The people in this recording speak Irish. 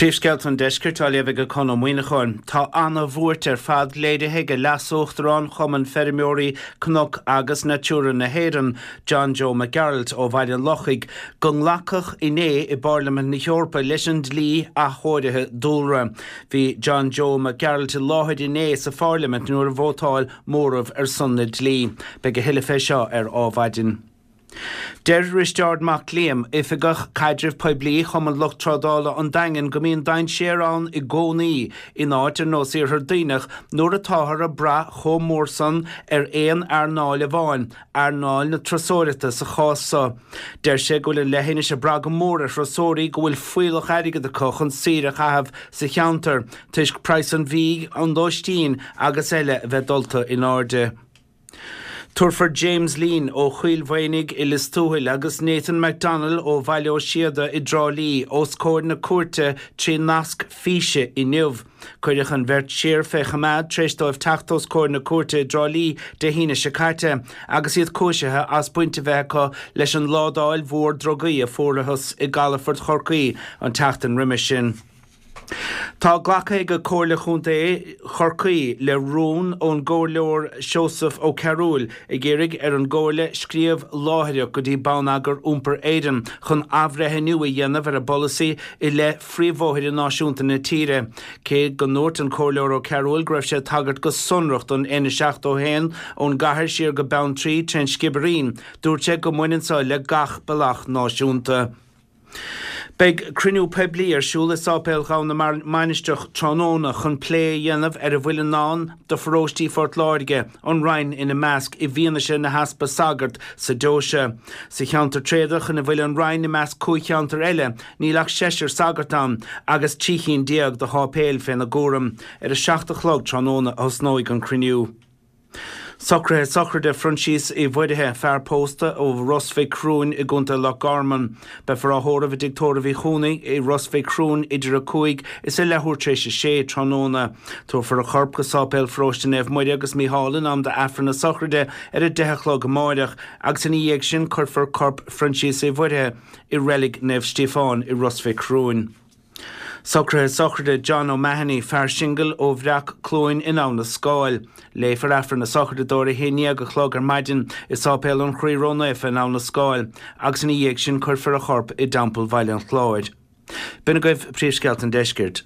Príomhscéalta an Deiscirt á léamh ag Conn Ó Muíneacháin. Tá ana-bhuairt ar fad léirithe ag Leas-Uachtarán Chumann Feirmeoirí Cnoc agus Natura na hÉireann, John Joe Mac Gearailt ó Bhaile an Lochaigh, go nglacadh inné i bPairlimint na hEorpa leis an dlí athchóirithe dúlra. Bhí John Joe Mac Gearailt i láthair inné sa phairlimint nuair a vótáil móramh ar son na dlí. Beidh a thuilleadh fé seo ar Ádhmhaidin. Deir Risteárd Mac Liam, Oifigeach Caidrimh Poiblí Chumann Lucht Trádála an Daingin go mbíonn dainséar ann i gcónaí in áit ar nós Iarthar Duibhneach nuair atáthar ag brath chomh mór san ar aon earnáil amháin, earnáil na turasóireachta sa chás so. Deir sé go bhfuil an leithinis ag brath go mór ar thurasóirí go bhfuil fuíollach airgid acu chun saoire a chaitheamh sa cheantar toisc praghas an bhídh, an lóistín agus eile a bheith dulta in airde. Tabharfar James Leen ó Choill Mhaonaigh i Lios Tuathail agus Nathan McDonnell ó Bhaile Ó Síoda i dTrá Lí os comhair na cúirte trí nasc físe inniu. Cuireadh an bheirt siar fé choimeád tar éis dóibh teacht os comhair na cúirte i dTrá Lí Dé hAoine seo caite agus iad cúisithe as baint a bheith acu leis an ládáil mhór drugaí a fuarathas i gcalafort Chorcaí an tseachtain roimis sin. Tá glactha ag Comhairle Chontae Chorcaí le rún ón gComhairleoir Seosamh Ó Cearúil ag iarraidh ar an gComhairle scríobh láithreach go dtí Bonneagar Iompair Éireann chun athbhreithniú a dhéanamh ar a bpolasaí i leith phríomhbhóithre náisiúnta na tíre. Cé go ndúirt an Comhairleoir Ó Cearúil go raibh sé ag tagairt go sonrach don N71 ón gcathair siar go Beanntraí trén Sciobairín, dúirt sé go mbaineann so le gach bealach náisiúnta. Beidh cruinniú poiblí ar siúl i Sáipéal Ghabha na Mainistreach tráthnóna chun plé a dhéanamh ar a bhfuil i ndán do pharóistí Phort Láirge, an Rinn ina measc, i bhfianaise na heaspa sagart sa deoise. Sa cheantar tréadach ina bhfuil an Rinn i measc 5 cheantar eile, níl ach seisear sagart ann agus 13 chinn de sháipéil féna gcúram. Ar a 7 a chlog tráthnóna a thosnóidh an cruinniú. Socruithe sochraide Phroinsias Uí Mhuirithe, fear pósta ó Ros Mhic Thriúin i gContae Loch Garman. Beifear á thórramh i dTigh Tórraimh Uí Chuanaigh i Ros Mhic Thriúin idir 5 is a leathuair tar éis a sé tráthnóna. Tabharfar a chorp go Sáipéal Pharóiste Naomh Muire agus Mícheál in am d'Aifreann na sochraide ar a 10 a chlog amáireach agus ina dhiaidh sin cuirfear corp Phroinsias Uí Mhuirithe i Reilig Naomh Stíofán i Ros Mhic Thriúin. Socruithe sochraide John O'Mahony, fear singil ó Bhreac Cluain in Abha na Scáil. Léifear Aifreann na sochraide dó ar a 11 a chlog ar maidin i Sáipéal an Chroí Ró-Naofa in Abha na Scáil agus ina dhiaidh sin cuirfear a chorp i dTeampall Bhaile an Chláir. B'in agaibh príomhscéalta an deiscirt.